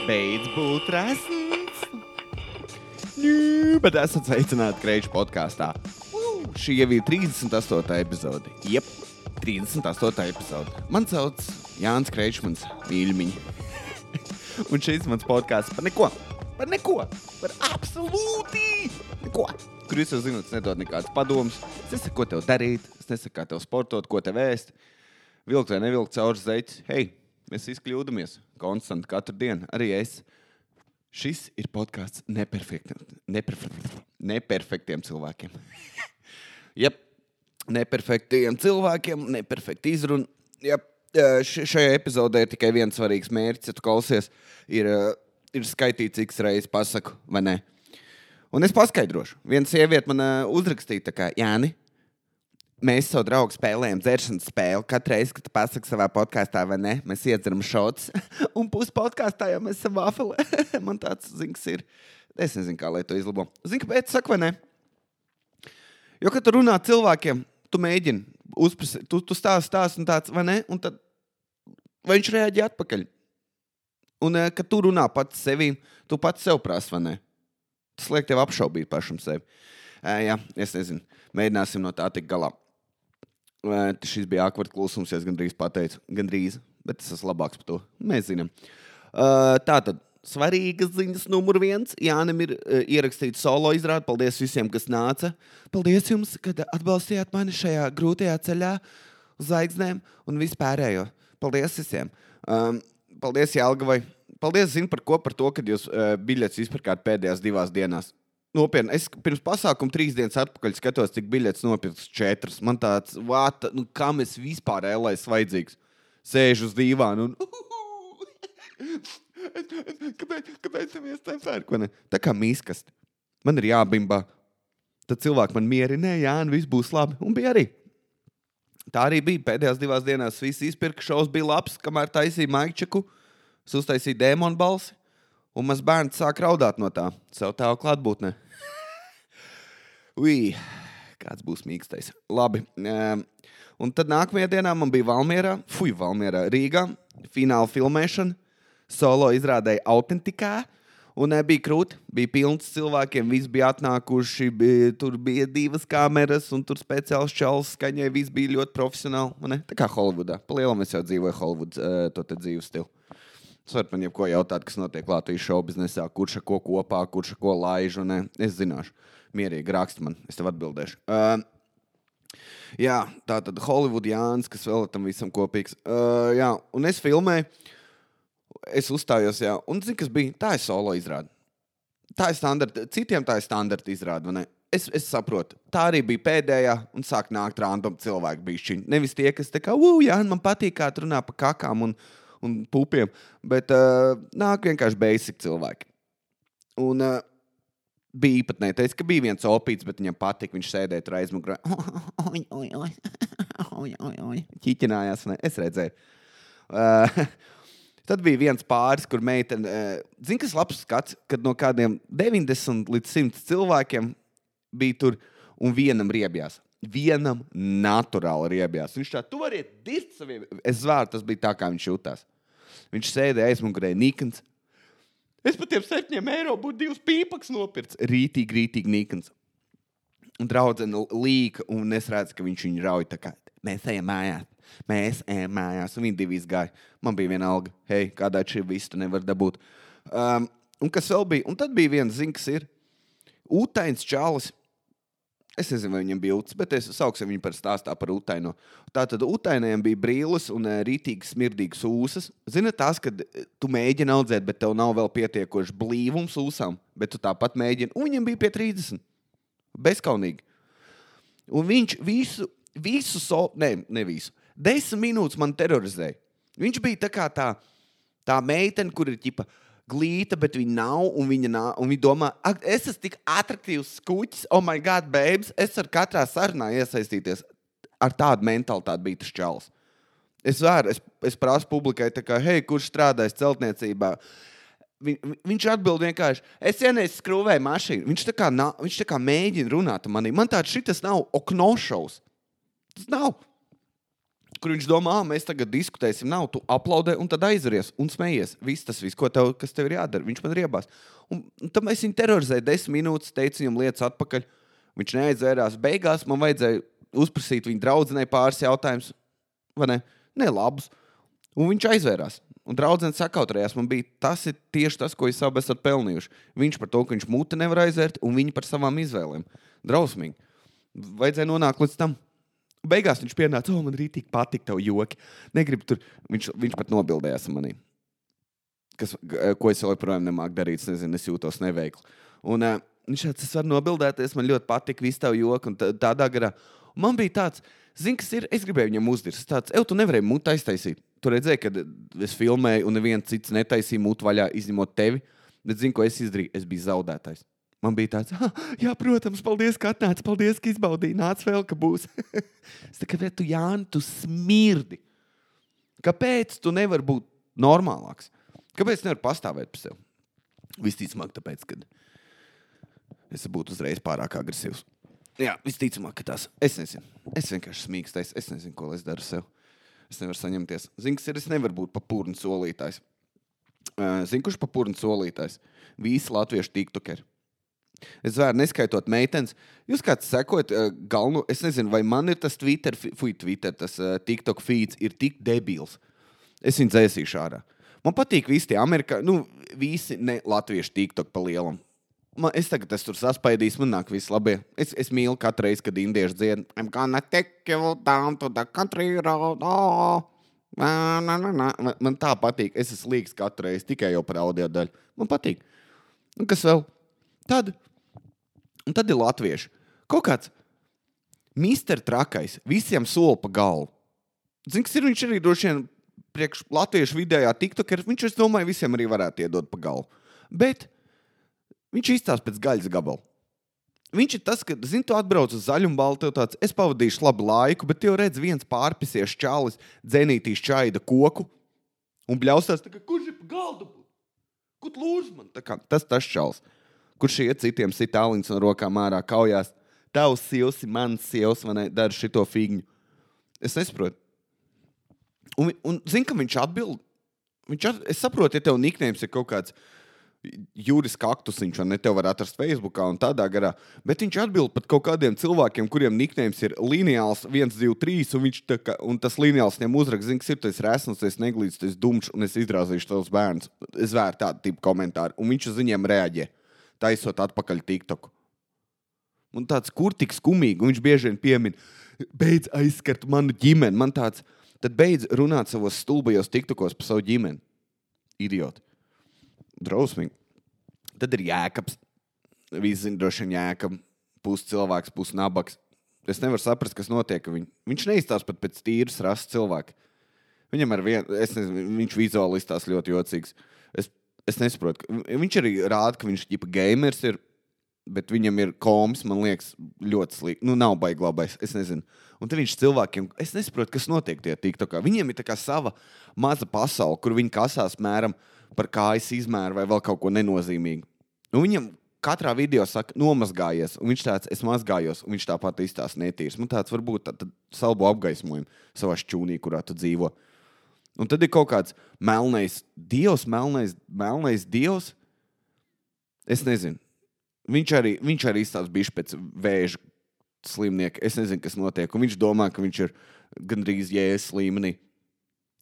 Beidz būt resns. Bet esat sveicināti Kreiču podkāstā. Šī jau ir 38. epizode. Jep, 38. epizode. Man sauc Jānis Kreičs, mans mīļumiņi. Un šis mans podkāsts par neko. Par absolūti neko. Kur jūs jau zināt, es nedodu nekādas padomas. Es nesaku, ko tev darīt. Es nesaku, kā tev sportot, ko tev ēst. Vilkt vai nevilkt caur zeķi. Hei, mēs visi kļūdamies. Konstanti katru dienu. Arī es. Šis ir podkāsts neperfektiem cilvēkiem. Jep, neperfektiem cilvēkiem, neperfekti izruna. Jep, šajā epizodē ir tikai viens svarīgs mērķis, ja tu klausies, ir skaitīt, cik reizes pasaku, vai ne? Un es paskaidrošu. Viena sieviete man uzrakstīja tā kā, Jāni, mēs savu draugu spēlējam dzeršanas spēli. Katru reizi, kad tu pasaki savā podkāstā, vai ne, mēs iedzeram šots. Un pus podkāstā jau mēs esam vafeli. Man tāds zinks ir. Es nezinu, kā lai to izlabo. Zini, kāpēc saku, vai ne? Jo, kad tu runā cilvēkiem, tu mēģini uzprasīt, tu stāsti un tāds, vai ne? Un tad vai viņš reaģē atpakaļ. Un, kad tu runā pats sevīm, tu pats sev prasi, vai ne? Tas liek tev apšaubīt pašam sevi. Jā, es nezinu. Mēģināsim no tā tik galā. Šis bija ākvart klusums, ja es gandrīz pateicu. Gandrīz, bet es esmu labāks par to. Mēs zinām. Tātad, svarīgas ziņas numur 1. Jānim ir ierakstīts solo izrādi. Paldies visiem, kas nāca. Paldies jums, kad atbalstījāt mani šajā grūtajā ceļā uz zvaigznēm un vispārējo. Paldies visiem. Paldies Jelgavai. Paldies, zinu par ko, par to, kad jūs biļetes izpirkāt pēdējās 2 dienās. Nopietni, es pirms pasākuma 3 dienas atpakaļ skatos, cik biļetes nopirks 4. Man tāds, kam es vispār ēlais vajadzīgs? Sēžu uz dīvānu un... Kāpēc tev iestēm ko ne? Tā kā mīskasti. Man ir jābimbā. Tad cilvēki man mierinē, Jāni, viss būs labi. Un bija arī. Tā arī bija. Pēdējās 2 dienās visi izpirka, šovs bija labs, kamēr taisīja maikčeku. Es uztaisīju dēmonu balsi. Un maz bērns sāk raudāt no tā. Savu tēvu klātbūtnē. Kāds būs mīkstais. Labi. Un tad nākamajā dienā man bija Valmierā, Rīgā, fināla filmēšana. Solo izrādēja autentikā. Un bija krūti, bija pilns cilvēkiem, visi bija atnākuši, tur bija 2 kameras, un tur speciāls čalis skaņai, visi bija ļoti profesionāli. Ne? Tā kā Holivudā. Palielam es jau dzīvoju Holivuds, to te dzīves stilu. Es varu man jebko jautāt, kas notiek Latvijas šoubiznesā, kurš ar ko kopā, kurš ar ko laiž, un es zināšu. Mierīgi raksti man, es tev atbildēšu. Jā, tā tad Hollywood Jānis, kas vēl tam visam kopīgs. Jā, un es filmēju, es uzstājos, jā, un zini, kas bija? Tā ir solo izrāde. Tā ir standarta, citiem tā ir standarta izrāde, vai ne? Es saprotu, tā arī bija pēdējā, un sāk nākt random cilvēki bišķiņi. Nevis tie, kas tā kā, Jāni, man patīk, kā tu runā pa kakām un pupiem, bet nāk vienkārši basic cilvēki. Un bija īpatnēji teica, ka bija viens opīts, bet viņam patika, viņš sēdēja tur aizmugurē. Ķiķinājās, ne? Es redzēju. Tad bija viens pāris, kur meitene, zini, kas labs skats, kad no kādiem 90 līdz 100 cilvēkiem bija tur un vienam riebjās. Vienam naturāli riebjās. Viņš tā, tu variet dirst saviem. Es zvēru, tas bija tā, kā viņš jutās. Viņš sēdēja aizmugurē nikns. Es par tiem 7 eiro būtu 2 pīpaks nopirts. Rītīgi nikns. Un draudzene līka, un es redzu, ka viņš viņu rauj tā kā, mēs ejam mājās. Un viņi 2 izgāja. Man bija viena alga. Hei, kādā šī visu tu nevar dabūt. Un kas vēl bija? Un tad bija viens zinks ir. Ūtains čalis. Es nezinu, vai viņam bija uts, bet es sauksim viņu par stāstā par utaino. Tātad utainajam bija brīles un rītīgi smirdīgas ūsas. Zini tās, kad tu mēģini audzēt, bet tev nav vēl pietiekoši blīvums ūsām, bet tu tāpat mēģini. Un viņam bija pie 30. Bezkaunīgi. Un viņš visu 10 minūtes man terorizēja. Viņš bija tā kā tā meitene, kur ir ķipa glīta, bet viņa nav, un viņa domā, es esmu tik atraktīvs skuķis, oh my God, babes, es ar katrā sarunā iesaistīties. Ar tādu mentalitāti bija tas čalis. Es prasu publikai, tā kā, hei, kurš strādājas celtniecībā? Viņš atbild vienkārši, es vienreiz skrūvēju mašīnu. Viņš tā kā mēģina runāt manī. Man tāds šitas nav oknošaus. Tas nav. kur viņš domā, mēs tagad diskutēsim, nav, tu aplaudē un tad aizveries un smejies. Viss, kas tev ir jādara. Viņš man riebās. Un tam es viņu terorizēju 10 minūtes, teicu viņam lietas atpakaļ. Viņš neaizvērās. Beigās man vajadzēja uzprasīt viņa draudzenei pāris jautājumus, vai ne? Ne labus. Un viņš aizvērās. Un draudzene sakautrējās. Man bija, tas ir tieši tas, ko jūs abi esat pelnījuši. Viņš par to, ka viņš muti nevar aizvērt, un viņi par savām izvēlēm. Drausmīgi. Vajadzēja nonākt līdz tam. Beigās viņš pienāca, man rītīgi patika tev joki. Negribu tur. Viņš pat nobildējās manī. Ko es joprojām nemāku darīt. Es nezinu, es jūtos neveikli. Un viņš tāds, es varu nobildēties, man ļoti patika visu tev joki. Un tādā garā. Un man bija tāds, zini, kas ir, es gribēju viņam uzdirst. Tāds, tu nevarēji mutu aiztaisīt. Tu redzēji, kad es filmēju un neviens cits netaisīja mutu vaļā, izņemot tevi. Bet zini, ko es izdarīju? Es biju zaudētājs. Man bija tāds, jā, protams, paldies, ka atnāc, paldies, ka izbaudīji, nāc vēl, ka būs. Es tā kā, tu, Jāni, tu smirdi. Kāpēc tu nevari būt normālāks? Kāpēc nevar pastāvēt par sevi? Visticamāk, tāpēc, kad es būtu uzreiz pārāk agresīvs. Jā, visticamāk, ka tas. Es nezinu. Es vienkārši smīkstais. Es nezinu, ko es daru sev. Es nevaru saņemties. Zini, kas ir, es nevaru būt papurni solītājs. Zini, kurš papurni solītājs? Visi latviešu tiktokeri. Es vēru neskaitot meitenes. Jūs kāds sekojat galvenu, es nezinu, vai man ir tas Twitter, tas TikTok feeds ir tik debils. Es viņu dzēsīšu ārā. Man patīk visi tie visi ne latviešu TikTok pa lielam. Es tagad tur saspaidīšu, man nāk viss labie. Es mīlu katru reizi, kad indieši dzied. I'm gonna take you down to the country road. Oh. Man tā patīk. Es esmu līgs katru reizi, tikai jau par audio daļu. Man patīk. Un kas vēl? Tad ir latvieši. Kaut kāds mister trakais, visiem sola pa galvu. Zini, kas ir, viņš arī droši vien priekš latviešu vidējā tiktokeri, viņš, es domāju, visiem arī varētu iedot pa galvu. Bet viņš izstās pēc gaļas gabalu. Viņš ir tas, ka, zini, tu atbrauc uz zaļumbalu, tev tāds, es pavadīšu labu laiku, bet tev redz viens pārpisies čalis, dzenītīs čaida koku un bļaustās, tā kā, kurš ir pa galdu? Kur lūdz man? Tā kā, tas čalis. Kurš iet citiem sit aliņas no rokām ārā kaujās. Tavs sievs, mans sievs, man dara šito figņu. Es nesaprotu. Un zini, ka viņš atbild. Es saprotu, ja tev niknējums ir kaut kāds Juris Kaktusiņš, vai ne, tev var atrast Facebookā un tādā garā, bet viņš atbild pat kaut kādiem cilvēkiem, kuriem niknējums ir lineāls 1, 2, 3, un tas lineāls viņam uzrakst, zini, kas ir, tu esi resns, tu esi neglīts, tu esi dumšs, un es izrāzīšu tavus bērnus. Es vēru tādu tipu komentāru, un viņš uz viņiem reaģē. Taisot atpakaļ TikToku. Un tāds, kur tik skumīgi, un viņš bieži vien piemin, beidz aizskart manu ģimeni. Man tāds, tad beidz runāt savos stulbajos TikTokos par savu ģimeni. Idioti. Drausmīgi. Tad ir Jēkabs. Visi zina droši vien Jēkab. Pus cilvēks, pus nabaks. Es nevaru saprast, kas notiek. Viņš neizstās pat pēc tīras rases cilvēka. Viņam es nezinu, viņš vizuāli izstās ļoti jocīgs. Es nesaprotu. Viņš arī rāda, ka viņš ģipa gamers ir, bet viņam ir komis, man liekas, ļoti slikti. Nav baigi labais, es nezinu. Un te viņš cilvēkiem, es nesaprotu, kas notiek tie TikTokā. Viņiem ir tā kā sava maza pasaule, kur viņi kasās mēram par kājas izmēru vai vēl kaut ko nenozīmīgu. Un viņam katrā video saka, nomazgājies, un viņš tāds, es mazgājos, un viņš tāpat izstās netīrs. Man tāds varbūt tad salbu apgaismojumu savā šķūnī, kurā tu dzīvo. Un tad ir kaut kāds melnais dievs. Es nezinu. Viņš arī izstāsta bišķi pēc vēža slimnieka. Es nezinu, kas notiek. Un viņš domā, ka viņš ir gandrīz Jēzus līmenī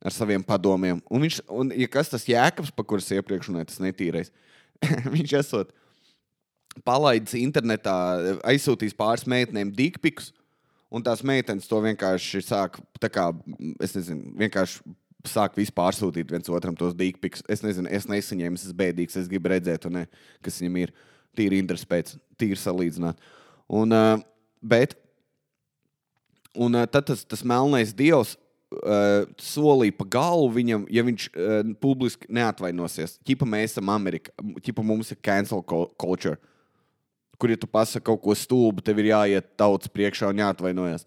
ar saviem padomiem. Un ja kas tas Jēkabs, pa kuras iepriekš runāja, tas netīrais, viņš esot palaidis internetā, aizsūtīs pāris meitenēm dickpikus, un tās meitenes to vienkārši sāk, tā kā, es nezinu, vienkārši sāk vispār sūtīt viens otram tos dickpikus. Es nezinu, es nesaņēmu, es esmu bēdīgs, es gribu redzēt, un ne, kas viņam ir tīri interesi pēc, tīri salīdzināt. Tad tas melnais dievs solīja pa galvu viņam, ja viņš publiski neatvainosies. Ķipa mēs esam Amerika, ķipa mums ir cancel culture, kur ja tu pasaki kaut ko stulbu, tev ir jāiet tautas priekšā un jāatvainojas.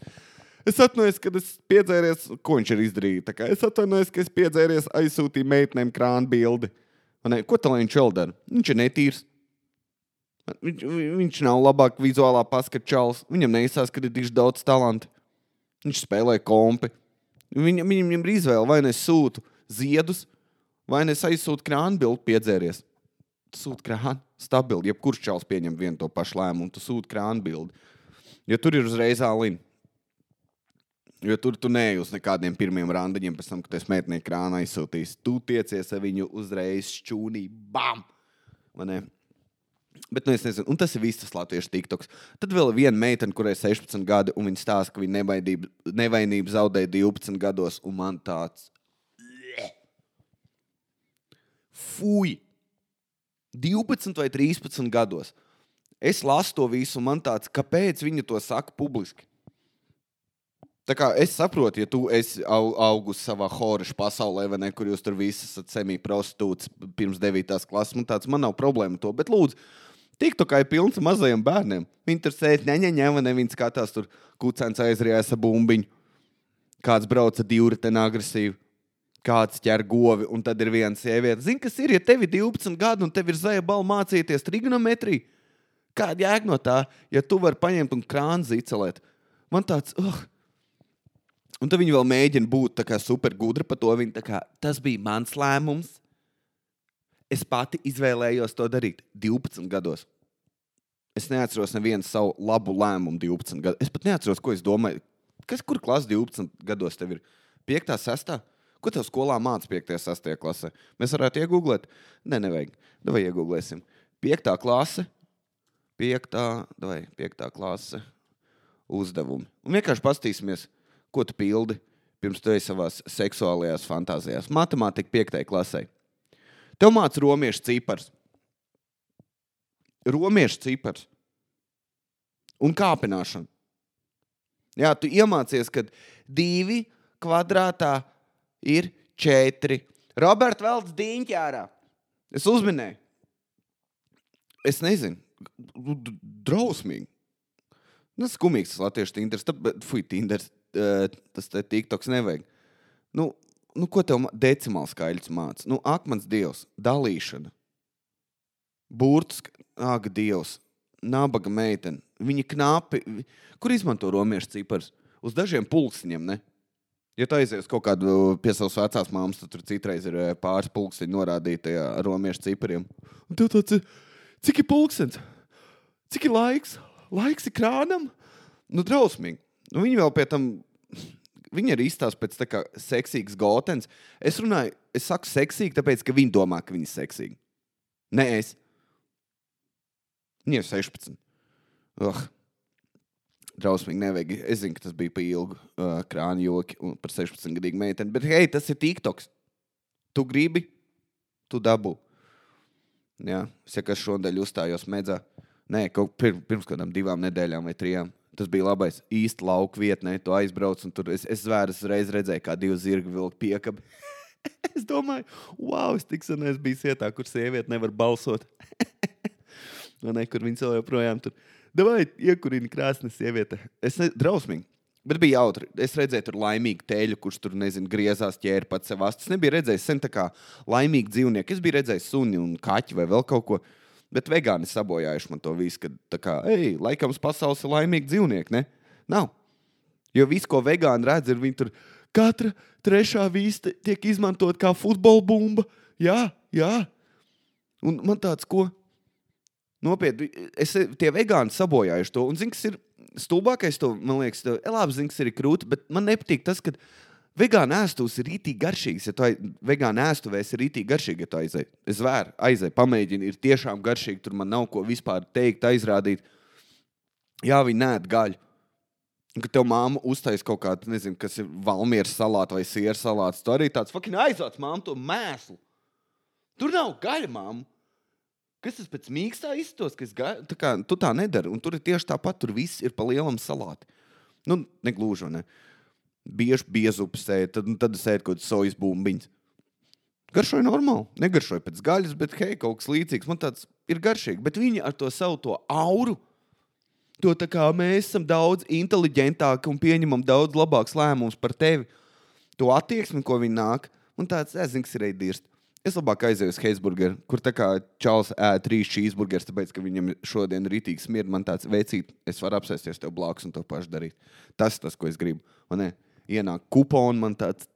Es atvainojos, kad es piedzēries, ko viņš ir izdarījis. Es atvainojos, ka es piedzēries, aizsūtīju meitenēm krānu bildi. Ko tā lai viņš vēl dara? Viņš ir netīrs. Viņš nav labāk vizuālā paskata čalis. Viņam neizsās, ka ir tik daudz talanti. Viņš spēlē kompi. Viņam ir izvēle, vai es sūtu ziedus, vai es aizsūtu krānu bildu piedzēries. Tu sūti krānu, stabili, jebkurš čals pieņem vienu to pašu lēmumu, tu sūti krānu bildi. Jo tur ir uzreiz ālini. Jo tur tu neej uz nekādiem pirmiem randiņiem, pēc tam, kad es meitnieku krānu aizsūtīs. Tu tiecies ar viņu uzreiz šķūnī, bam! Vai ne? Bet, es nezinu, un tas ir viss tas latviešu tiktoks. Tad vēl viena meitene, kurai 16 gadi, un viņa stāsta, ka viņa nevainību zaudēja 12 gados, un man tāds... Fuj! 12 vai 13 gados. Es lasu to visu, un man tāds, kāpēc viņa to saka publiski? Tā kā es saprotu, ja tu esi augus savā horeša pasaulē, vai ne, kur jūs tur visi esat semi-prostitūts pirms 9. klases, man nav problēma to, bet lūdzu, TikTokā ir pilns mazajiem bērniem. Viņi tur sēž, vai ne, viņi skatās tur kucēns aizrijās ar bumbiņu, kāds brauca divriteni agresīvi, kāds ķer govi, un tad ir viena sieviete. Zini, kas ir, ja tev ir 12 gadi un tev ir zaja bala mācīties trigonometriju? Kāda jēga no tā, ja tu vari paņemt un krānu zicelēt? Man tāds, Un tad viņi vēl mēģina būt tā kā super gudri par to. Viņi tā kā, tas bija mans lēmums. Es pati izvēlējos to darīt 12 gados. Es neatceros nevienu savu labu lēmumu 12 gados. Es pat neatceros, ko es domāju. Kur klasa 12 gados tev ir? 5. 6. Ko tev skolā māca 5. 6. klasē? Mēs varētu iegooglēt? Nevajag. Davai iegooglēsim. 5. klase. 5. klase uzdevumi. Un vienkārši pastīsimies, ko tu pildi, pirms tu esi savās seksuālajās fantāzijās. Matemātika 5. klasē. Tev māca romiešu cipars. Romiešu cipars. Un kāpināšana. Jā, tu iemācies, ka 2 kvadrātā ir 4. Robert velc diņķi ārā. Es uzminēju. Es nezinu. Drausmīgi. Skumīgs tas latviešu Tinders. Tinders. Tas TikToks nevajag. Ko tev decimāls skaļs māca? Akmens dievs, dalīšana. Burtus, dievs, nabaga meitene. Viņa knapi. Kur izmanto romiešu cipars? Uz dažiem pulkstiņiem, ne? Ja tu aizies kaut kādu pie savas vecās māmas, tad tur citreiz ir pāris pulkstiņi norādīti tajā romiešu cipariem. Un tev tāds, cik ir pulkstens? Cik ir laiks? Laiks ir krānam? Drausmīgi. Viņi vēl pie tam, viņi arī izstāsta pēc tā kā seksīgs gotens. Es saku seksīgi, tāpēc, ka viņi domā, ka viņi ir seksīgi. Ne es. Viņi ir 16. Drausmīgi nevajag. Es zinu, ka tas bija pa ilgu krānu joki un par 16-gadīgu meiteni, bet hei, tas ir TikToks. Tu gribi, tu dabū. Jā, es kā šodien uzstājos medzā. Nē, pirms kādām 2 nedēļām vai 3. Tas bija labais īsti lauku vietnē, tu aizbrauc un tur es zvēras reiz redzēju, kā 2 zirgi vilk piekabi. Es domāju, wow, es tik sen es biju vietā, kur sieviete nevar balsot. Kur viņas vēl joprojām tur. Davai, iekurini krāsni sieviete. Drausmīgi, bet bija jautri. Es redzēju tur laimīgu teļu, kurš tur, griezās ķēri pats sev astas. Nebija redzējis sen tā kā laimīgi dzīvnieki. Es biju redzējis suni un kaķi vai vēl kaut ko. Bet vegāni sabojājuši man to visu, kad tā kā, laikams pasaules ir laimīgi dzīvnieki, ne? Nav. Jo viss, ko vegāni redz, ir viņi tur, katra 3. vīsta tiek izmantot kā futbola bumba. Jā. Un man tāds, ko? Nopietni, tie vegāni sabojājuši to. Un zini, kas ir stulbākais to, man liekas, labi, zini, kas ir krūti, bet man nepatīk tas, ka vegāna ēstuvs ir rītīgi garšīgs. Ja tu vegāna ēstuvēs ir rītīgi garšīgi, ja tu aizēji. Es aizēju, pamēģinu, ir tiešām garšīgi, tur man nav ko vispār teikt, aizrādīt. Jā, viņi neēd gaļu. Un, kad tev māma uztais kaut kādu, nezinu, kas ir valmieras salāta vai sieru salāts, tu arī tāds fucking aizvāc māmu to mēslu. Tur nav gaļa, māmu. Kas tas pēc mīkstā izstos, ka tu tā nedari. Un tur ir tieši tāpat, tur viss ir pa lielam salāti. Negluži, ne? Bieži biezupas ēd, tad es ēdu kaut kādas sojas bumbiņas. Garšoja normāli. Negaršoja pēc gaļas, bet hei, kaut kas līdzīgs. Man tāds ir garšīgi. Bet viņi ar to savu to auru, to tā kā mēs esam daudz inteliģentāki un pieņemam daudz labāks lēmums par tevi. To attieksmi, ko viņi nāk. Un tāds, es zinu, kas ir dirst. Es labāk aizēju uz Heisburgeru, kur tā kā čals ēd 3 cheeseburgers, tāpēc, ka viņam šodien rītīgi smird. Man tāds, veicīt, es varu apsēsties tev blakus un to pašu darīt. Tas, ko es gribu. Un ne? ienāk kuponi, man tāds,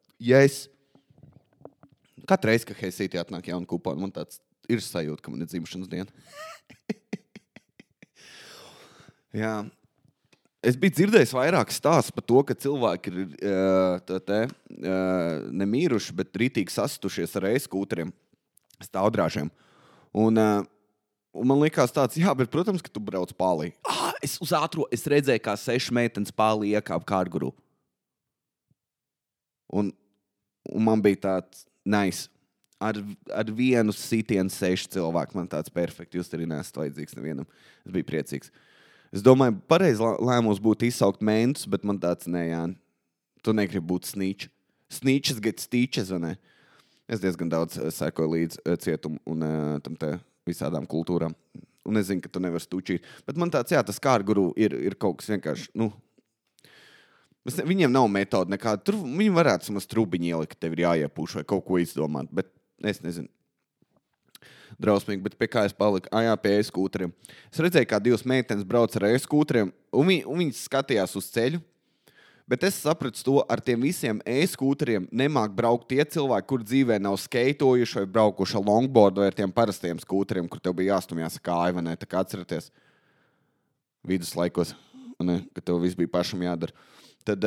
katru reizi, kad Heisītī atnāk jauna kuponi, man tāds ir sajūta, ka man ir dzimšanas diena. Jā. Es biju dzirdējis vairāk stāsts par to, ka cilvēki ir nemīruši, bet rītīgi sastušies ar e-skūteriem, stāvdrāžiem. Un man likās tāds, jā, bet, protams, ka tu brauc pālī. Es redzēju, kā 6 meitenes pālī iekāp kārguru. Un man bija tāds nice. Ar vienu sitienu 6 cilvēku. Man tāds perfekti. Jūs arī neesat vajadzīgs nevienam. Es biju priecīgs. Es domāju, pareizi lēmums būtu izsaukt mentus, bet man tāds, nē, Jāni, tu negribi būt snīčs. Snīčs get stīčs, vai ne? Es diezgan daudz sekoju līdz cietumu un tam te visādām kultūrām. Un es zinu, ka tu nevar stūčīt. Bet man tāds, jā, tas kārguru ir kaut kas vienkārši, viņiem nav metode nekāda. Tur viņi varētu samaz trubiņi ielikt, ka tev ir jāiepūš vai kaut ko izdomāt, bet es nezinu. Drausmīgi, bet pie kā es paliku? Pie e-skūteriem. Es redzēju, kā 2 meitenes brauc ar e-skūteriem, un viņas skatījās uz ceļu, bet es sapratu to, ar tiem visiem e-skūteriem nemāk braukt tie cilvēki, kur dzīvē nav skeitojuši vai braukuši ar longboardu vai ar tiem parastiem skūteriem, kur tev bija jāstumjās kāja, vai ne? Tā kā atceraties viduslaikos, ne? Ka tev viss bija pašam jādara. Tad,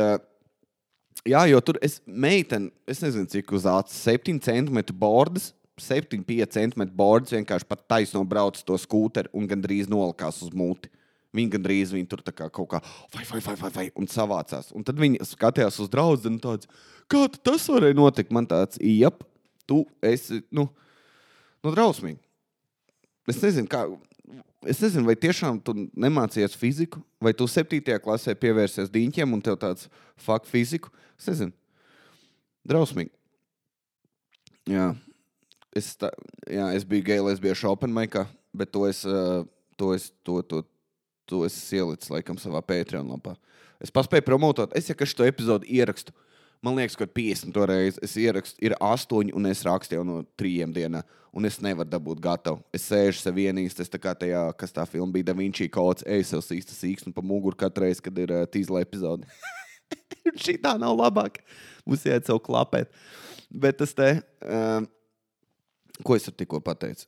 jo tur meitene, es nezinu, cik uz acis, 7 centimetru bordas, 7-5 centimetru bordas vienkārši pat taisno brauc to skūteri un gandrīz nolikās uz muti. Viņi tur tā kā kaut kā vai un savācās. Un tad viņi skatījās uz draudzeni tāds, kā tas varēja notikt? Man tāds, tu esi, drausmīgi. Es nezinu, vai tiešām tu nemācījies fiziku, vai tu 7. klasē pievērsies diņķiem un tev tāds fuck fiziku. Es nezinu. Drausmīgi. Jā. Es biju gay lesbiešu open micā, bet to es ielicis laikam savā Patreon lapā. Es paspēju promotot. Es šo epizodu ierakstu. Man liekas, ka 50 reizi es ierakstu. Ir 8 un es rakstu jau no 3 dienā. Un es nevaru dabūt gatavu. Es sēžu sev vienīst. Es tā kā tajā, kas tā filma bija, Da Vinci Codes, sev sīkstu pa muguru katru reizi, kad ir tīzla epizode. Šī tā nav labāk. Mums jāiet sev klapēt. Bet tas te... Ko es tikko pateicu?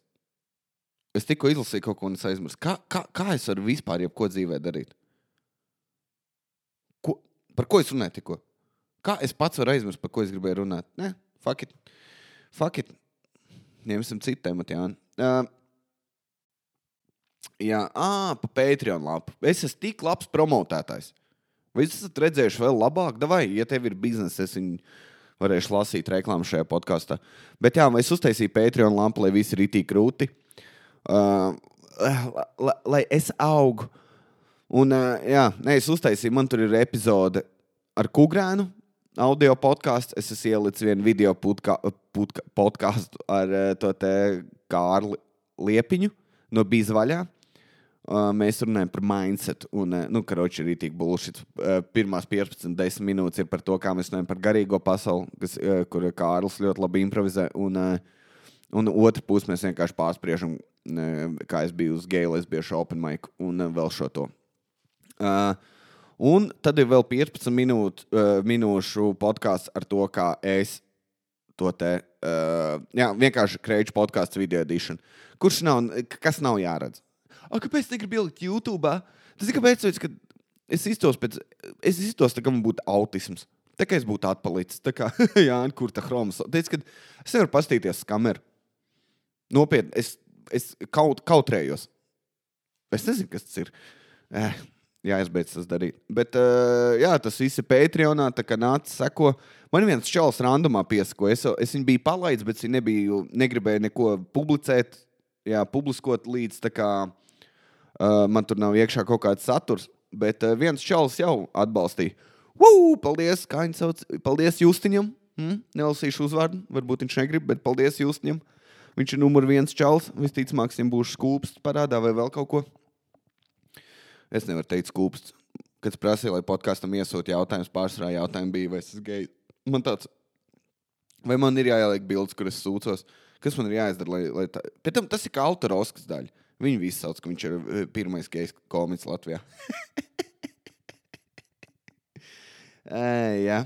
Es tikko izlasīju kaut ko un es aizmirsu. Kā es varu vispār jebko dzīvē darīt? Par ko es runāju tikko? Kā es pats varu aizmirst, par ko es gribēju runāt? Nē, fuck it. Ņemsim citu tematu, Jāni. Pa Patreon lapu. Es esmu tik labs promotētājs. Vai jūs esat redzējuši vēl labāk? Davai, ja tev ir biznesa, es viņu... varēšu lasīt reklāmu šajā podkastā. Bet es uztaisīju Patreon lampu, lai visi ir itī krūti. Lai es augu. Un, es uztaisīju, man tur ir epizode ar Kugrēnu, audio podcasts. Es esmu ielicis vienu video podcastu ar to te Kārli Liepiņu no Bīzvaļā. Mēs runājam par mindset un, karoči ir itīgi bullshit. Pirmās 15-10 minūtes ir par to, kā mēs runājam par garīgo pasauli, kur Kārlis ļoti labi improvizē, un otru pusi mēs vienkārši pārspriežam, kā es biju uz gay lesbiešu open mic un vēl šo to. Un tad ir vēl 15 minūšu podcasts ar to, kā es to te, vienkārši kreiču podcasts video edition, kas nav jāredz. Kāpēc negribu ielikt YouTube? Tas ir kāpēc, ka es iztos tā, ka man būtu autisms. Tā kā es būtu atpalicis. Tā kā, kur tā chromas. Teic, ka es nevaru pastīties uz kameru. Nopietni, es kautrējos. Es nezinu, kas tas ir. Jāizbeidz tas darīt. Bet, tas viss ir Patreonā, tā kā nāc seko. Man viens čalis randomā piesako. Es viņu biju palaidis, bet viņi negribēja neko publicēt, publiskot līdz tā kā... man tur nav iekšā kaut kāds saturs, bet viens čalis jau atbalstīja. Paldies, kā viņi sauc? Paldies Justiņam. Nelasīšu uzvārdu, varbūt viņš negrib, bet paldies Justiņam. Viņš ir numur 1 čalis. Visticamāk, viņam būs skūpsts parādā vai vēl kaut ko. Es nevaru teikt skūpsts. Kad prasīja, lai podkastam iesūt jautājums, pārsvarā jautājumi bija, vai es esmu gejs. Man tāds, vai man ir jāieliek bildes, kur es sūcos? Kas man ir jāizdara, lai tā... Pēc tam tas ir kā autora Oskars daļa. Viņi visi sauc, ka viņš ir pirmais gejs komiks Latvijā. Jā.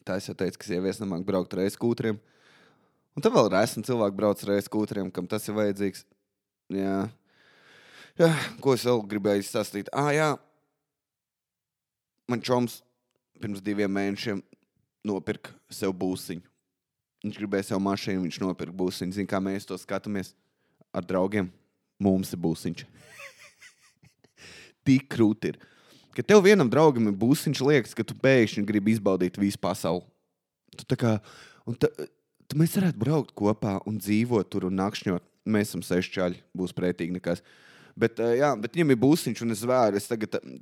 Tā es jau teicu, ka sievietes nemāk braukt ar e-skūtriem. Un tad vēl esmu cilvēki brauc ar e-skūtriem, kam tas ir vajadzīgs. Jā. Ko es vēl gribēju stāstīt? Jā. Man čoms pirms 2 mēnešiem nopirka sev būsiņu. Viņš gribēja sev mašīnu, viņš nopirka būsiņu. Zin, kā mēs to skatāmies ar draugiem? Mums ir būsiņš. Tik krūti ir. Ka tev vienam draugam ir būsiņš, liekas, ka tu pēkšņi gribi izbaudīt visu pasauli. Tu tā kā... Mēs varētu braukt kopā un dzīvot tur un nakšņot. Mēs esam 6 čaļi, būs pretīgi nekas. Bet viņam ir būsiņš un es vēru.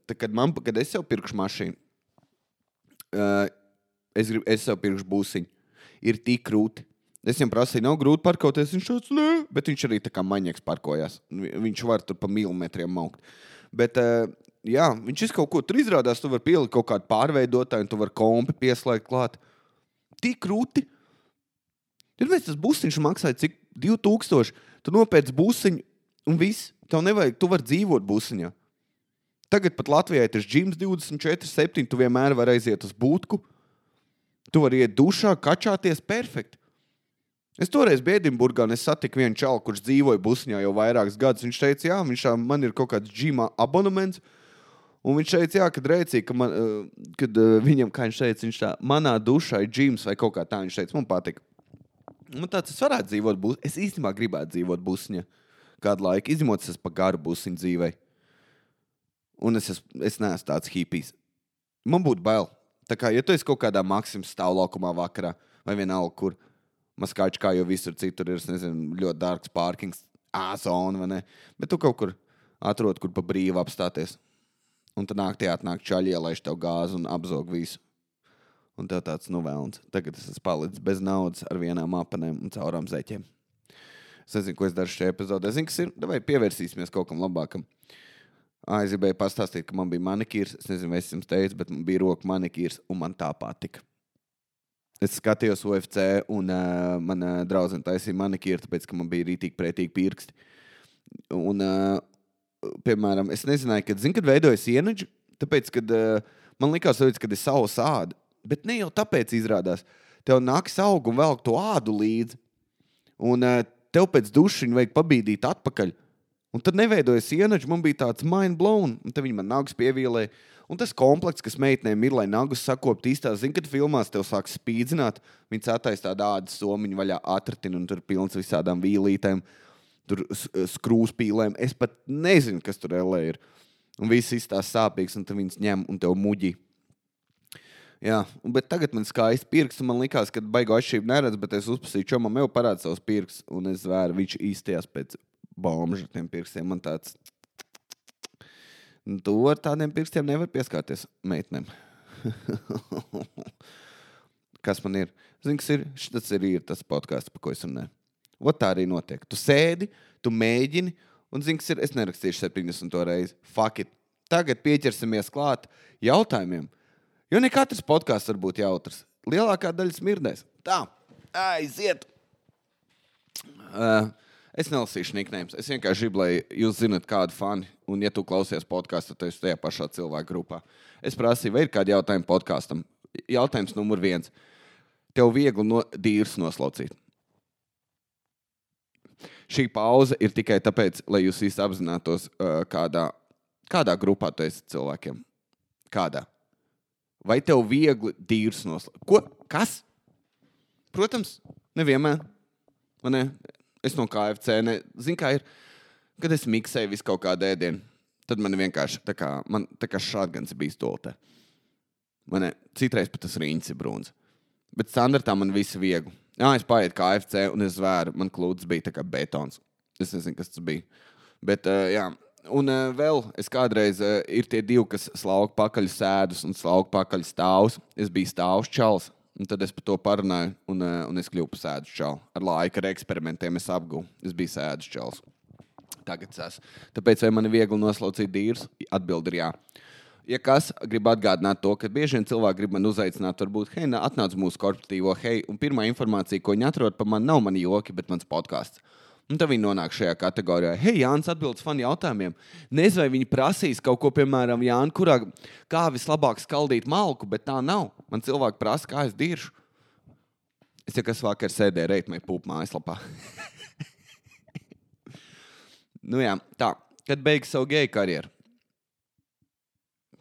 Kad es sev pirkšu mašīnu, es sev pirkšu būsiņu. Ir tik krūti. Es viņam prasīju, nav grūti parkoties. Viņš tāds, nē. Bet viņš arī tā kā maņieks parkojās. Viņš var tur pa milimetriem maukt. Bet, viņš kaut ko tur izrādās. Tu var pielikt kaut kādu pārveidotāju un tu var kompi pieslēgt klāt. Tik krūti. Tad mēs tas būsiņš maksāja cik 2000. Tu nopēc būsiņu un viss. Tev nevajag, tu var dzīvot būsiņā. Tagad pat Latvijā ir tas gyms 24/7. Tu vienmēr var aiziet uz būtku. Tu vari iet dušā, kačāties perfekti. Es toreiz biju Edinburgā un es satiku vienu čalu, kurš dzīvoja busņā jau vairākus gadus. Viņš teica, man ir kaut kāds džima abonements. Un viņš teica, kad rēcīja, kad viņam, kā viņš teica, viņš tā, manā dušā ir džims vai kaut kā tā. Viņš teica, man patika. Man tāds, es varētu dzīvot busņā. Es īstenībā gribētu dzīvot busņā kādu laiku. Izņemot, es pa garu busņu dzīvei. Un es neesmu tāds hipijs. Man būtu bail. Tā kā, ja tu esi kaut kādā Maksimas stāvlaukumā vakarā vai vienalga, kur Maskāči kā jau visur citur ir, es nezinu, ļoti dārgs pārkings, zona, vai ne? Bet tu kaut kur atrod, kur pa brīvu apstāties. Un tad atnāk čaļi, ielaiž tev gāzi un apzog visu. Un tev tāds, vēlns. Tagad es esmu palicis bez naudas ar vienām apanēm un caurām zeķiem. Es nezinu, ko es daru šajā epizodē. Es zinu, kas ir. Vai pievērsīsimies kaut kam labākam. Es gribēju pastāstīt, ka man bija manikīrs. Es nezinu, vai es jums teicu, bet man bija roku manikīrs un man tā patika. Es skatījos UFC un mana draudzene taisīja manikīru, tāpēc, ka man bija rītīgi pretīgi pirksti. Un, piemēram, es nezināju, kad veidojas ienaģi, tāpēc, kad man likās, kad ir savs āda. Bet ne jau tāpēc izrādās. Tev nāks aug un velk to ādu līdzi. Un tev pēc dušiņa vajag pabīdīt atpakaļ. Un tad neveidojas ienaģi, man bija tāds mind blown. Un tad viņi man nagus pievīlēja. Un tas komplekts, kas meitnēm ir, lai nagus sakopt īstās, kad filmās tev sāk spīdzināt, viņi cētais tādu ādas somiņu vaļā atratina un tur pilns visādām vīlītēm, tur skrūspīlēm. Es pat nezinu, kas tur LA ir. Un viss izstās sāpīgs, un tad viņas ņem un tev muģi. Jā, bet tagad man skaisti pirksts, un man likās, ka baigo atšķirību neredz, bet es uzpasīju čomam, jau parāda savus pirksts, un es zvēru, viņš īstījās pēc bomža tiem pirkstiem. Man tāds, tu ar tādiem pirkstiem nevar pieskārties meitnēm. Kas man ir? Zini, kas ir? Tas ir tas podcasts, pa ko es runāju. Ot tā arī notiek. Tu sēdi, tu mēģini, un zini, kas ir? Es nerakstīšu 70. reizi. Fuck it. Tagad pieķersimies klāt jautājumiem. Jo ne katrs podcasts var būt jautrs. Lielākā daļa smirdēs. Tā, aiziet. Es nelasīšu nicknames. Es vienkārši gribu, lai jūs zinat kādu fani. Un ja tu klausies podcastu, tad esi tajā pašā cilvēku grupā. Es prasīju, vai ir kādi jautājumi podkastam. Jautājums numur 1. Tev viegli dīrs noslaucīt. Šī pauze ir tikai tāpēc, lai jūs visi apzinātos, kādā grupā tu esi cilvēkiem. Kādā? Vai tev viegli dīrs noslaucīt? Ko? Kas? Protams, nevienmēr. Man ne? Es no KFC, zinu, kā ir, kad es miksēju visu kaut kādu ēdienu, tad man vienkārši tā kā šātgans bija stoltē. Man citreiz pat tas riņķis ir brūns. Bet standartā man viss viegli. Es paietu KFC un es zvēru, man klūds bija tā kā betons. Es nezinu, kas tas bija. Bet, jā. Un vēl es kādreiz ir tie 2, kas slauka pakaļ sēdus un slauka pakaļ stāvus. Es biju stāvus čals. Un tad es par to parunāju, un es kļuvu par sēdus čalu. Ar laiku, ar eksperimentiem es apguvu. Es biju sēdus čals. Tagad es esmu. Tāpēc, vai man ir viegli noslaucīt dīrs? Atbildi ir jā. Ja kas, gribu atgādināt to, ka bieži vien cilvēki grib man uzaicināt, varbūt, hei, atnāc mūsu korporatīvo, hei, un pirmā informācija, ko viņi atrod par mani, nav mani joki, bet mans podcasts. Un tad viņi nonāk šajā kategorijā. Hei, Jānis atbildes fanu jautājumiem. Nezinu, vai viņi prasīs kaut ko, piemēram, Jāni, kā vislabāk skaldīt malku, bet tā nav. Man cilvēki prasa, kā es diršu. Es jau kas vakar sēdēju Reitmai Pūp mājaslapā. Nu jā, tā. Kad beigsi savu geju karjeru?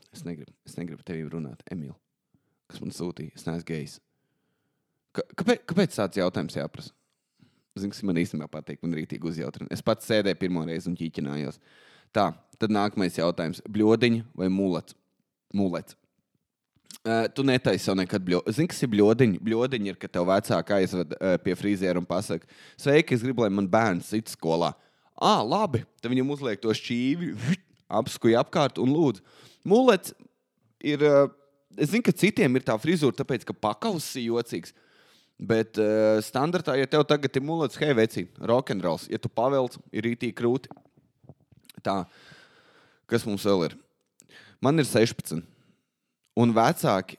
Es negribu tevi runāt, Emīl. Kas man sūtīja? Es neesmu gejs. Kāpēc tāds jautājums jāprasa? Zinu, kas man īstenībā patīk, man rītīgi uzjautrina. Es pats sēdēju pirmo reizi un ķīķinājos. Tā, tad nākamais jautājums. Bļodiņa vai mulets? Mulets. Tu netaisi jau nekad bļodiņu. Zini, kas ir bļodiņa? Bļodiņa ir, ka tev vecāki aizved pie frīziera un pasaka, sveiki, es gribu, lai man bērns sit skolā. Labi. Tad viņam uzliek to šķīvi, apskuja apkārt un lūdzu. Mulets ir, es zinu, ka citiem ir tā frizūra, tāpēc, ka pakauss ir jocīgs. Bet standartā, ja tev tagad ir mulets, hei, vecī, rock'n'rolls. Ja tu pavelc, ir rītīgi krūti. Tā, kas mums vēl ir? Man ir 16. Un vecāki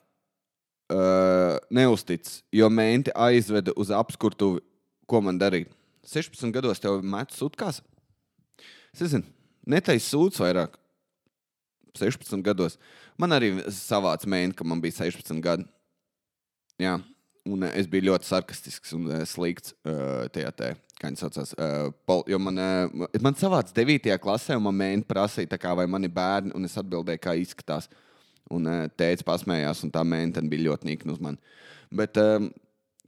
neuztic, jo menti aizveda uz apskurtuvi, ko man darīt. 16 gados tev met sutkās? Es nezinu, netais sūds vairāk. 16 gados. Man arī savāds menti, ka man bija 16 gadi. Jā. Un es biju ļoti sarkastisks un slikts tajā kā viņi saucās. Jo man savāds 9. klasē, un man mēģina prasīja, tā kā, vai mani bērni, un es atbildēju, kā izskatās. Un tēvs pasmējās, un tā mēģina bija ļoti nikna uz mani. Bet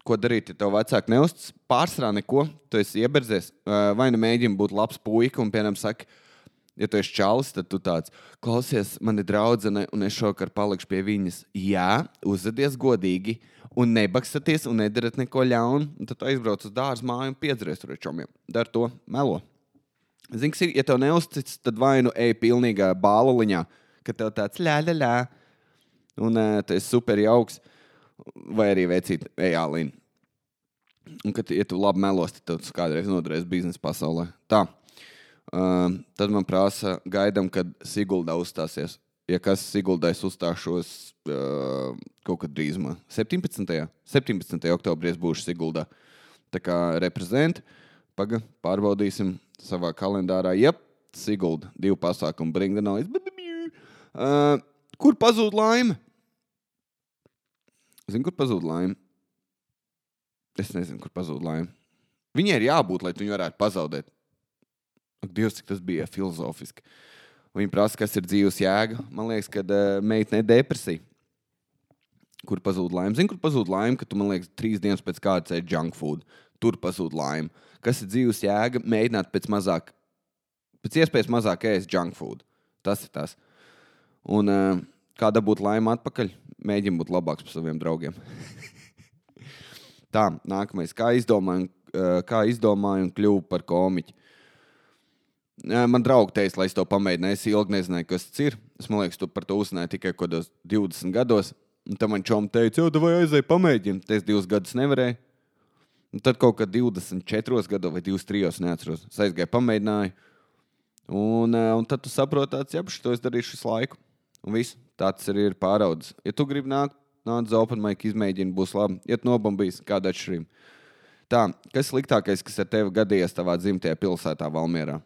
ko darīt, ja tev vecāki neuztic? Pārsvarā neko, tu esi ieberdzies. Vai nu mēģini būt labs puika, un piemēram saka, ja tu esi čalis, tad tu tāds, klausies, mani draudzene, un es šokar palikšu pie viņas. Jā, uzvedies godīgi, un nebakstaties, un nedarat neko ļaunu, un tad aizbrauc uz dārzu māju un piedzries tur ar čomiem. Dar to, melo. Zini, kas ir, ja tev neuztic, tad vai nu ej pilnīgā bāluliņā, ka tev tāds ļā, un tu esi super jauks, vai arī vecīt, ej ālīni. Un, kad, ja tu labi melos, tad tu kādreiz nodarēs biznesa pasaulē. Tā. Tad man prasa, gaidam, kad Siguldā uzstāsies. Ja kas Siguldais uzstāšos kaut kad drīzumā. 17. oktobrī es būšu Siguldā. Tā kā reprezenti. Pārbaudīsim savā kalendārā. Jep, Sigulda. 2 pasākumu. Bring the noise. Kur pazūd laime? Zini, kur pazūd laime? Es nezinu, kur pazūd laime. Viņai ir jābūt, lai tu viņu varētu pazaudēt. Ak, Dievs, cik tas bija filozofiski. Viņa prasa, kas ir dzīves jēga. Man liekas, ka meitene depresija. Kur pazūd laime? Zini, kur pazūd laime, ka tu, man liekas, 3 dienas pēc kādas ēd junk food. Tur pazūd laime. Kas ir dzīves jēga? Mēģināt pēc iespējas mazāk ēst junk food. Tas ir tas. Un kā dabūt laime atpakaļ? Mēģini būt labāks par saviem draugiem. Tā, nākamais. Kā izdomāju un kļuvu par komiķi? Man draugi teica, lai es to pamēģināju. Es ilgi nezināju, kas tas ir. Es, man liekas, tu par to uzzināji tikai kādos 20 gados. Un tad man čom teica, jau, vai aizēj pamēģini. Es 2 gadus nevarēju. Un tad kaut kad 24 gados vai 23, neatceros. Es aizgāju pamēģināju. Un tad tu saproti tāds, jā, to es darīšu visu laiku. Un viss, tāds arī ir pāraudzis. Ja tu gribi nāc uz open mic, izmēģini, būs labi. Ja tu nobambīs, kāda atšķirība. Tā, kas sliktākais, kas ar tevi gadījies tavā dzimtajā pilsētā Valmierā?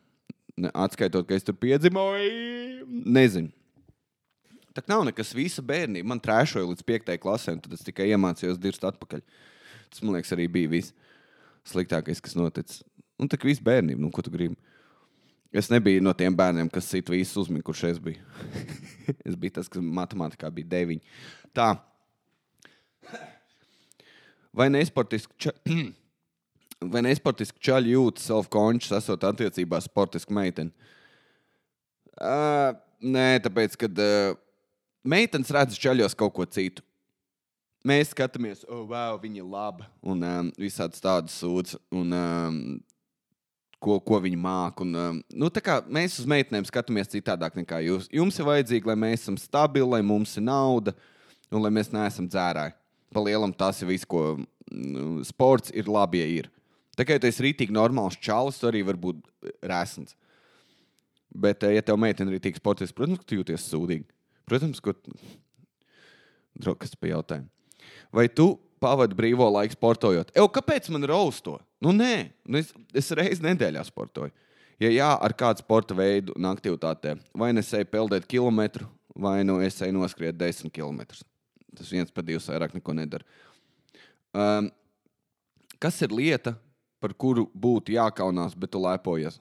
Atskaitot, ka es tur piedzimoju, nezinu. Tā nav nekas visa bērnība. Man trēšoja līdz 5. klasē, un tad es tikai iemācījos dirst atpakaļ. Tas, man liekas, arī bija viss sliktākais, kas noticis. Un tā kā viss bērnība, nu, ko tu gribi? Es nebiju no tiem bērniem, kas sit visu uzmini, kurš es biju. Es biju tas, kas matemātikā bija 9. Tā. Vai nesportiski čaļi jūtas self-conscious, esot attiecībā sportisku meiteni? Nē, tāpēc, kad meitenes redz čaļos kaut ko citu. Mēs skatāmies, wow, viņa ir laba, un visādas tādas sūdz, un ko viņi māk. Un, tā kā mēs uz meitenēm skatāmies citādāk nekā jūs. Jums ir vajadzīgi, lai mēs esam stabili, lai mums ir nauda, un lai mēs neesam dzērāji. Pa lielam tas ir viss, ko sports ir labi, ja ir. Tā kā, ja tu esi rītīgi normāls čalis, tu arī var būt rēsns. Bet, ja tev meitene ir rītīgi sportiski, protams, ka tu jūties sūdīgi. Protams, ko... Kas pa jautājumu? Vai tu pavadu brīvo laiku sportojot. Kāpēc man raust to? Nē. Es reizi nedēļā sportoju. Ja jā, ar kādu sporta veidu un aktivitātē. Vai es eju peldēt kilometru, vai es eju noskriet 10 kilometrus. Tas 1 pa 2 vairāk neko nedara. Kas ir lieta, par kuru būtu jākaunās, bet tu lepojies?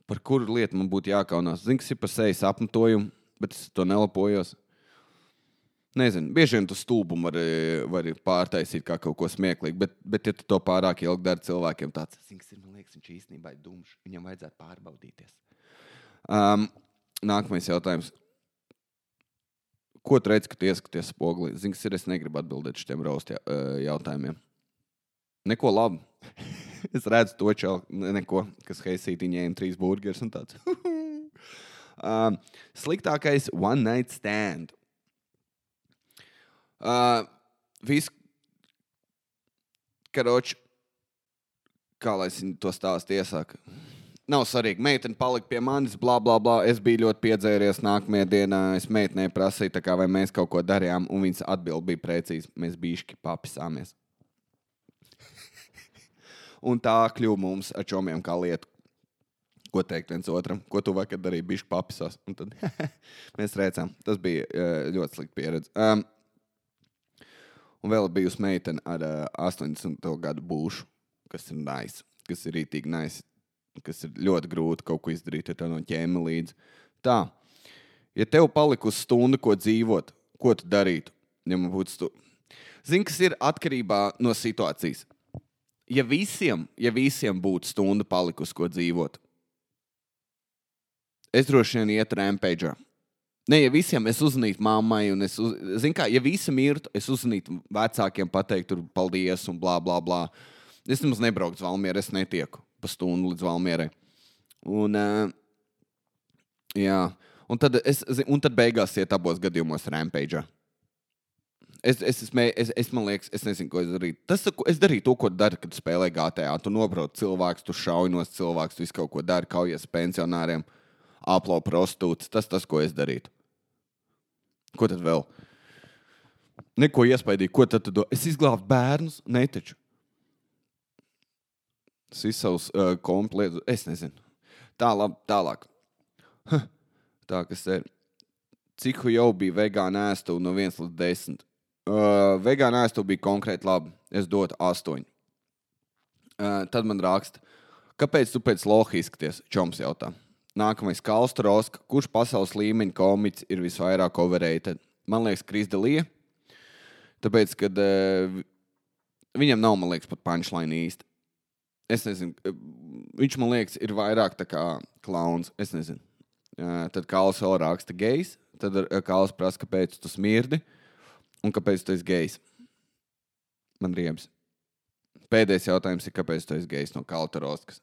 Par kuru lietu man būtu jākaunās? Zini, kas ir par sejas apmetojumu, bet es to nelepojos. Nezinu, bieži vien tu stulbumu vari pārtaisīt kā kaut ko smieklīgu, bet ja tu to pārāk ilgi dari cilvēkiem tāds, zini, kas ir, man liekas, viņš īstenībā ir dumšs, viņam vajadzētu pārbaudīties. Nākamais jautājums. Ko tu redzi, kad tu ieskaties spogulī? Zini, kas ir, es negribu atbildēt šitiem roast jautājumiem. Neko labu. Es redzu to neko, kas heisīti ņēma 3 burgers un tāds. Sliktākais one night stand. Karoči, kā lai es to stāstu iesāku? Nav svarīgi, meitene palika pie manis, blā, blā, blā. Es biju ļoti piedzēries nākamajā dienā. Es meitenei prasīju, tā kā vai mēs kaut ko darījām, un viņas atbild bija precīzi. Mēs bišķi papisāmies. Un tā kļuva mums ar čomiem kā lietu. Ko teikt viens otram? Ko tu vakar darīji? Bišķi papisās. Un tad mēs rēcām. Tas bija ļoti slikta pieredze. Un vēl bijusi meitene ar 80. gadu būšu, kas ir nice, kas ir rītīgi nice, kas ir ļoti grūti kaut ko izdarīt, ja tev no ķēma līdzi. Tā, ja tev palikusi stundu, ko dzīvot, ko tu darītu? Ja man būtu Zini, kas ir atkarībā no situācijas. Ja visiem būtu stunda palikusi, ko dzīvot, es droši vien iet rampage'ā. Ne, ja visiem es uzzvanītu mammai, un zini kā, ja visi mirtu, es uzzvanītu vecākiem, pateikt tur paldies un blā, blā, blā. Es nemaz nebrauktu uz Valmieru, es netieku pa stundu līdz Valmierai. Un, jā, un tad beigās iet abos gadījumos rampage'ā. Man liekas, es nezinu, ko es darītu. Es darīju to, ko daru, kad spēlē GTA. Tu nobrauc cilvēks, tu šaujinos cilvēks, tu visu kaut ko dari, kaujies pensionāriem, aplo prostitūts. Tas, ko es darītu. Ko tad vēl? Neko iespaidīgi. Ko tad tu do? Es izglābtu bērnus? Netaču. Es savus komplētus. Es nezinu. Tālāk. Tā, kas ir. Cik jau bija vegāna ēstuva no 1 līdz 10? Vegāna ēstuva bija konkrēti labi. Es dotu 8. Tad man raksta. Kāpēc tu pēc loha izskaties? Čoms jautā. Nākamais Kalsta Roska. Kurš pasaules līmeņa komiķis ir visvairāk overrated? Man liekas, Kris D'Elia. Tāpēc, kad viņam nav, man liekas, pat punchline īsti. Es nezinu. Viņš, man liekas, ir vairāk tā kā klauns. Es nezinu. Tad Kāls vēl raksta gejs. Tad Kāls prasa, kāpēc tu smirdi un kāpēc tu esi gejs. Man riebs. Pēdējais jautājums ir, kāpēc tu esi gejs no Kalta Roskas.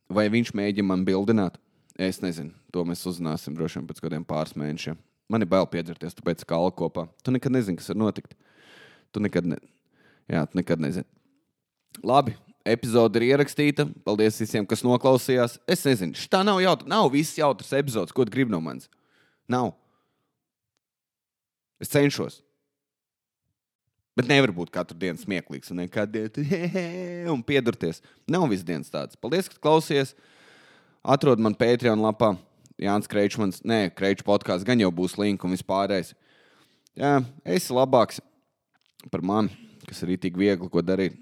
Vai viņš mēģina man bildināt? Es nezinu. To mēs uzzināsim droši vien pēc kādiem pāris mēnešiem. Man ir bail piedzerties, tu pēc Kāla kopā. Tu nekad nezini, kas var notikt. Tu nekad nezini. Labi. Epizode ir ierakstīta. Paldies visiem, kas noklausījās. Es nezinu, šitā nav viss jautrs epizodes, ko tu gribi no manis. Nav. Es cenšos. Bet nevar būt katru dienu smieklīgs un un piedurties. Nav viss dienas tāds. Paldies, ka klausies. Atrod man Patreon lapā. Jānis Kreičmans. Nē, Kreiču podkāsts gan jau būs link un vispārējais. Jā, esi labāks par mani, kas ir tik viegli, ko darīt.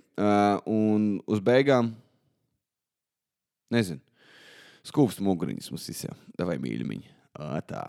Un uz beigām, nezinu, skūpst muguriņas mums visiem. Davai mīļumiņi. Tā.